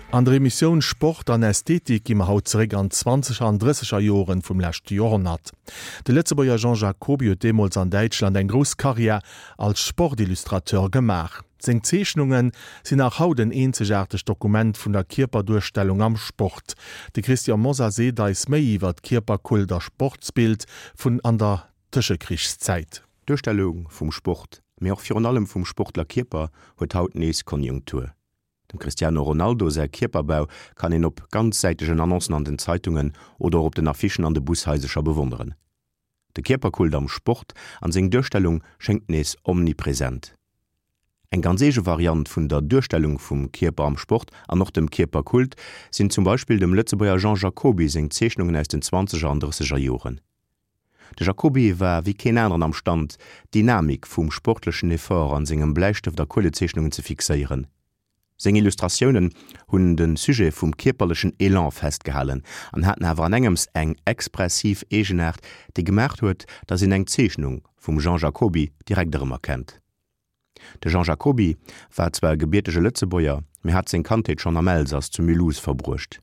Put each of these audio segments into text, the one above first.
An der Emissioun Sport an Ästhetik gi mer haut zeréck an d'Zwanzeger an Drësseger Joren vum leschte Joerhonnert. De Lëtzebuerger Jean Jacoby huet deemools an Däitschland eng grouss Karriär als Sportillustrateur gemaach. Seng Zeechnunge sinn nach haut en eenzegaartegt Dokument vun der Kierperduerstellung am Sport. De Christian Mosar seet eis méi iwwer d'Kierperkult a Sportsbild vun an der Tëschekrichszäit. D'Duerstellung vum Sport, mee och virun allem vum Sportlerkierper huet haut nees Konjunktur. Dem Cristiano Ronaldo säi Kierperbau kann een op ganzsäitegen Annoncen an den Zeitungen oder och op den Affichen an de Bushaisercher bewonneren. De Kierperkult am Sport an seng Duerstellung schéngt nees omnipresent. Eng ganz eege Variant vun der Duerstellung vum Kierper am Sport an och dem Kierperkult sinn zum Beispill dem Lëtzebuerger Jean Jacoby seng Zeechnungen aus den zwanzeger an drësseger Joren. De Jacoby war wéi keen aneren am Stand, d'Dynamik vum sportlechen Effort an sengem Bläistëft a Kuelezeechnungen ze fixéieren. Seng Illustratiounen hunn de Sujet vum kierperlechen Elan festgehalen an haten awer an engems eng expressiv Eegenaart, déi gemaacht huet, datt een eng Zeechnung vum Jean Jacoby direkt erëmerkennt. De Jean Jacoby war zwar e gebiertege Lëtzebuerger, mee hat seng Kandheet schonn am Elsass zu Mulhouse verbruecht.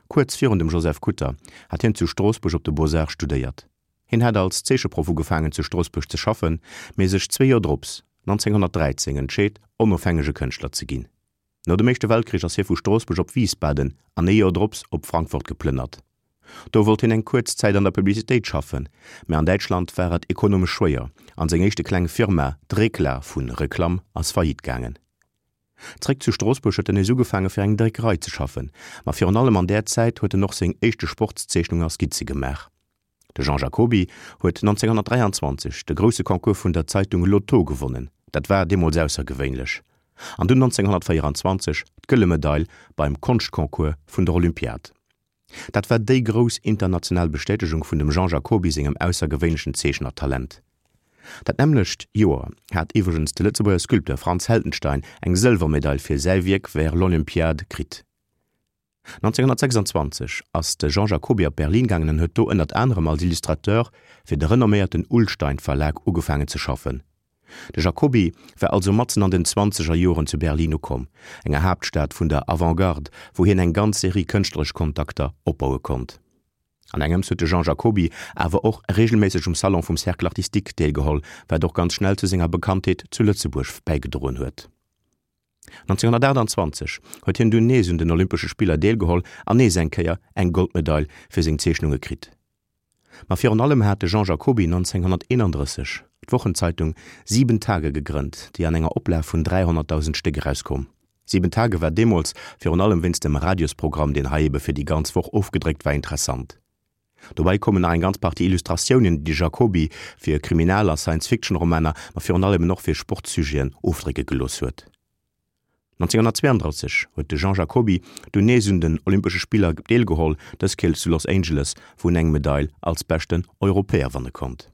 Kuerz virun dem Joseph Kutter hat hien zu Stroossbuerg op de Beaux-Arts studéiert. Hien hat als Zeecheproff ugefaangen zu Stroossbuerg ze schaffen, mee sech zwee Joer drops, 1913, entscheet, onofhängege Kënschtler ze ginn. No dem Éischte Weltkrich ass hie vu Stroossbuerg op Wiesbaden an ee Joer drops op Frankfurt geplënnert. Do wollt hien eng kuerz Zäit an der Publicitéit schaffen, mä an Däitschland war et ekonomesch schwéier an seng éischte kleng Firma, d'Rekla vu Reklam, ass faillite gaangen. Zréck zu Stroossbuerg huet en nees ugefaange fir eng Dréckerei ze schaffen, ma virun allem an där Zäit huet en och seng éischte Sportszeechnungen a Skizze gemaach. De Jean Jacoby huet 1923 de grousse Concours vun der Zeitung L'Auto gewonnen, dat war deemools aussergewéinlech, an dunn 1924 d'Gëlle Medail beim Konschtconcours vun der Olympiad. Dat war déi grouss international Bestätegung vun dem Jean Jacoby sengem aussergewéinlechen Zeechnertalent. Dat nämmlecht Joer hat iwwregens de Lëtzebuerger Sculpteur Franz Heldenstein eng Sëlwermedail fir säi Wierk Vers l'Olympiade kritt. 1926 ass de Jean Jacoby op Berlin gaangen an huet do ënnert anerem als Illustrateur fir de renomméierten Ullstein Verlag ugefaangen ze schaffen. De Jacoby war also matzen an den zwanzeger Joren zu Berlin ukomm, enger Haaptstad vun der Avant-Garde, wou hien eng ganz Serie kënschtleresch Kontakter opbaue konnt. An engems huet de Jean Jacoby awer och reegelméisseg um Salon vum Cercle Artistique deelgeholl, wat och ganz schnell zu senger Bekanntheet zu Lëtzebuerg bäigedroen huet. 1928 huet hien dunn nees un den Olympesche Spiller deelgeholl an nees eng Kéier eng Goldmedail fir seng Zeechnunge kritt. Ma virun allem hat de Jean Jacoby 1931 d'Wochenzeitung Sieben Tage gegrënnt, déi an enger Oplag vun 300.000 Stéck erauskoum. Sieben Tage war deemools virun allem wéinst dem Radiosprogramm, deen hei ebe fir déi ganz Woch ofgedréckt war, interessant. Dobäi koumen nach eng ganz Partie Illustratiounen, déi de Jacoby fir Kriminal a Science-Fiction-Romaner, ma virun allem eben och fir Sportsujeten ofdrécke gelooss huet. 1932 huet de Jean Jacoby dunn nees un den Olympesche Spiller deelgeholl, dës Kéier zu Los Angeles, wou en eng Medail als beschten Europäer wanne konnt.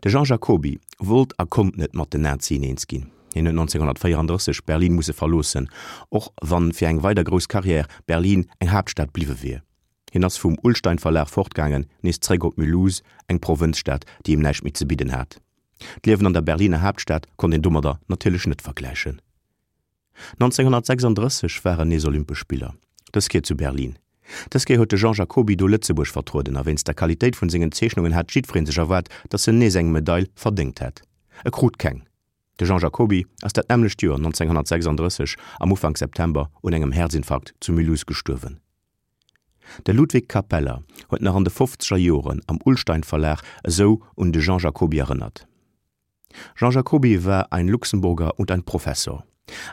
De Jean Jacoby wollt a konnt net mat den Nazien eens ginn. Hien huet 1934 Berlin musse verloossen, och wann fir eng weider grouss Karriär Berlin eng Haaptstad bliwwe wier. Hien ass vum Ullstein Verlag fortgaangen, nees zréck op Mulhouse, eng Provënzstad, déi him näischt méi ze bidden hat. D'Liewen an der Berliner Haaptstad konnt een domadder natierlech net vergläichen. 1936 waren nees Olympesch Spiller, dës Kéier zu Berlin. Dës Kéier huet de Jean Jacoby do Lëtzebuerg vertrueden a wéinst der Qualitéit vun sengen Zeechnungen hat jiddweree sech erwaart, datt en nees eng Medail verdéngt hätt. E krut keng. De Jean Jacoby ass dat nämmlecht Joer 1936 am Ufank September un engem Häerzinfarkt zu Mulhouse gestuerwen. De Ludwig Kapeller huet nach an de fofzeger Joren am Ullstein Verlag esou un de Jean Jacoby erënnert. Jean Jacoby war ein Luxemburger und ein Professor.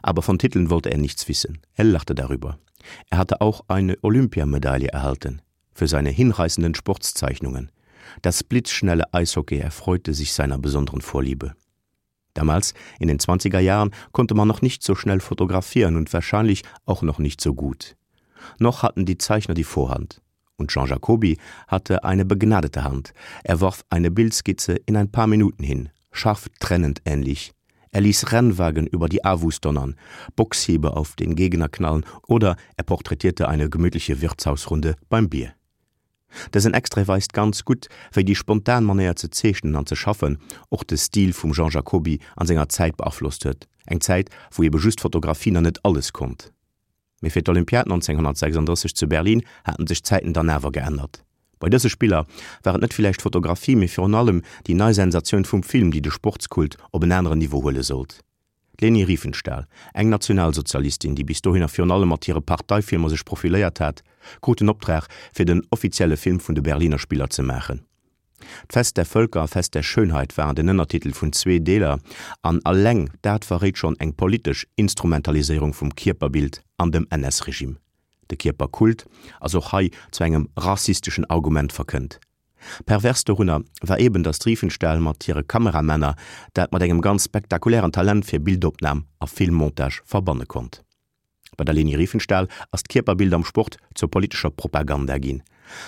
Aber von Titeln wollte er nichts wissen. Er lachte darüber. Er hatte auch eine Olympiamedaille erhalten für seine hinreißenden Sportszeichnungen. Das blitzschnelle Eishockey erfreute sich seiner besonderen Vorliebe. Damals, in den 20er Jahren, konnte man noch nicht so schnell fotografieren und wahrscheinlich auch noch nicht so gut. Noch hatten die Zeichner die Vorhand. Und Jean Jacoby hatte eine begnadete Hand. Er warf eine Bildskizze in ein paar Minuten hin, scharf trennend ähnlich. Er ließ Rennwagen über die Avus donnern, Boxhiebe auf den Gegner knallen oder er porträtierte eine gemütliche Wirtshausrunde beim Bier. Dësen Extrait weist ganz gutt, wéi déi spontan Manéier ze zeechnen an ze schaffen och de Stil vum Jean Jacoby an senger Zäit beaflosst huet, eng Zäit, wou ebe just Fotografie nach net alles konnt. Mee fir d'Olympiad 1936 zu Berlin haten sech d'Zäiten dann awer geännert. Bei dëse Spiller war et net villäicht d'Fotografie, mee virun allem déi nei Sensatioun vum Film, déi de Sportskult op en aneren Niveau huele sollt. D'Leni Riefenstahl, eng Nationalsozialistin, déi bis dohinner virun allem mat hire Parteifilmer sech profiléiert hat, krut den Optrag, fir den offizielle Film vun de Berliner Spiller ze maachen. D'Fest der Völker a Fest der Schönheit waren den Ënnertitel vun zwee Deeler, an alleng dat verréit schonn eng politesch Instrumentaliséierung vum Kierperbild an dem NS-Regime. De Kierperkult ass och hei zu engem rassisteschen Argument verkënnt. Pervers dorunner war eben, datt d'Riefenstahl mat hire Kameramänner dat mat engem ganz spektakulären Talent fir Bildopnam a Filmmontage verbanne konnt. Bei der Leni Riefenstahl ass d'Kierperbild am Sport zur politescher Propaganda ginn.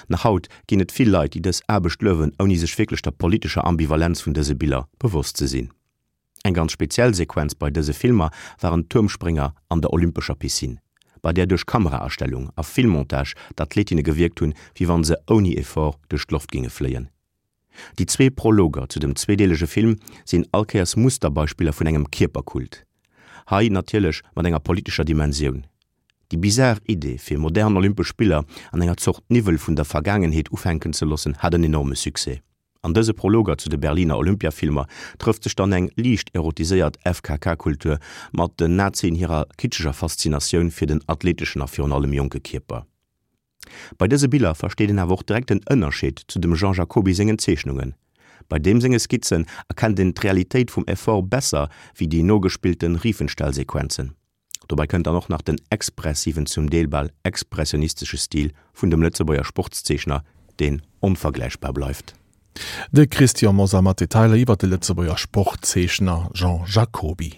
Nach haut ginn et vill Leit, déi dës Aarbecht luewen, ouni sech wierklech der politescher Ambivalenz vun dëse Biller bewosst ze sinn. Eng ganz speziell Sequenz bei dëse Filmer waren d'Tuermsprénger an der olympescher Piscine, bei där duerch Kameraastellung a Filmmontage d'Athletinne gewierkt hunn, wéi wann se ouni Effort duerch d'Loft géinge fléien. Déi zwee Prologer zu dem zweedeelege Film sinn allkéiers Musterbeispiller vun engem Kierperkult. Hei natierlech mat enger politescher Dimensioun. Déi bizar Idee fir modern Olympesch Spiller an enger Zort Niwwel vun der Vergaangenheet ufänken ze loossen, hat en enorme Succès. An dëse Prologer zu de Berliner Olympiafilmer trëfft sech dann eng liicht erotiséiert FKK-Kultur mat den Nazien hirer kitscheger Faszinatioun fir den athleteschen a virun allem jonke Kierper. Bei dëse Biller versteet een awer och direkt den Ënnerscheed zu dem Jean Jacoby sengen Zeechnungen. Bei deem senge Skizzen erkennt een d'Realitéit vum Effort besser wéi déi nogespillte Riefenstahl-Sequenzen. Dobei kënnt dann och nach den expressiven, zum Deel bal expressionistesche Stil vun dem Lëtzebuerger Sportszeechner, deen onvergläichbar bleift. De Christian Mosar mat Detailer iwwer de Lëtzebuerger Sportzeechner Jean Jacoby.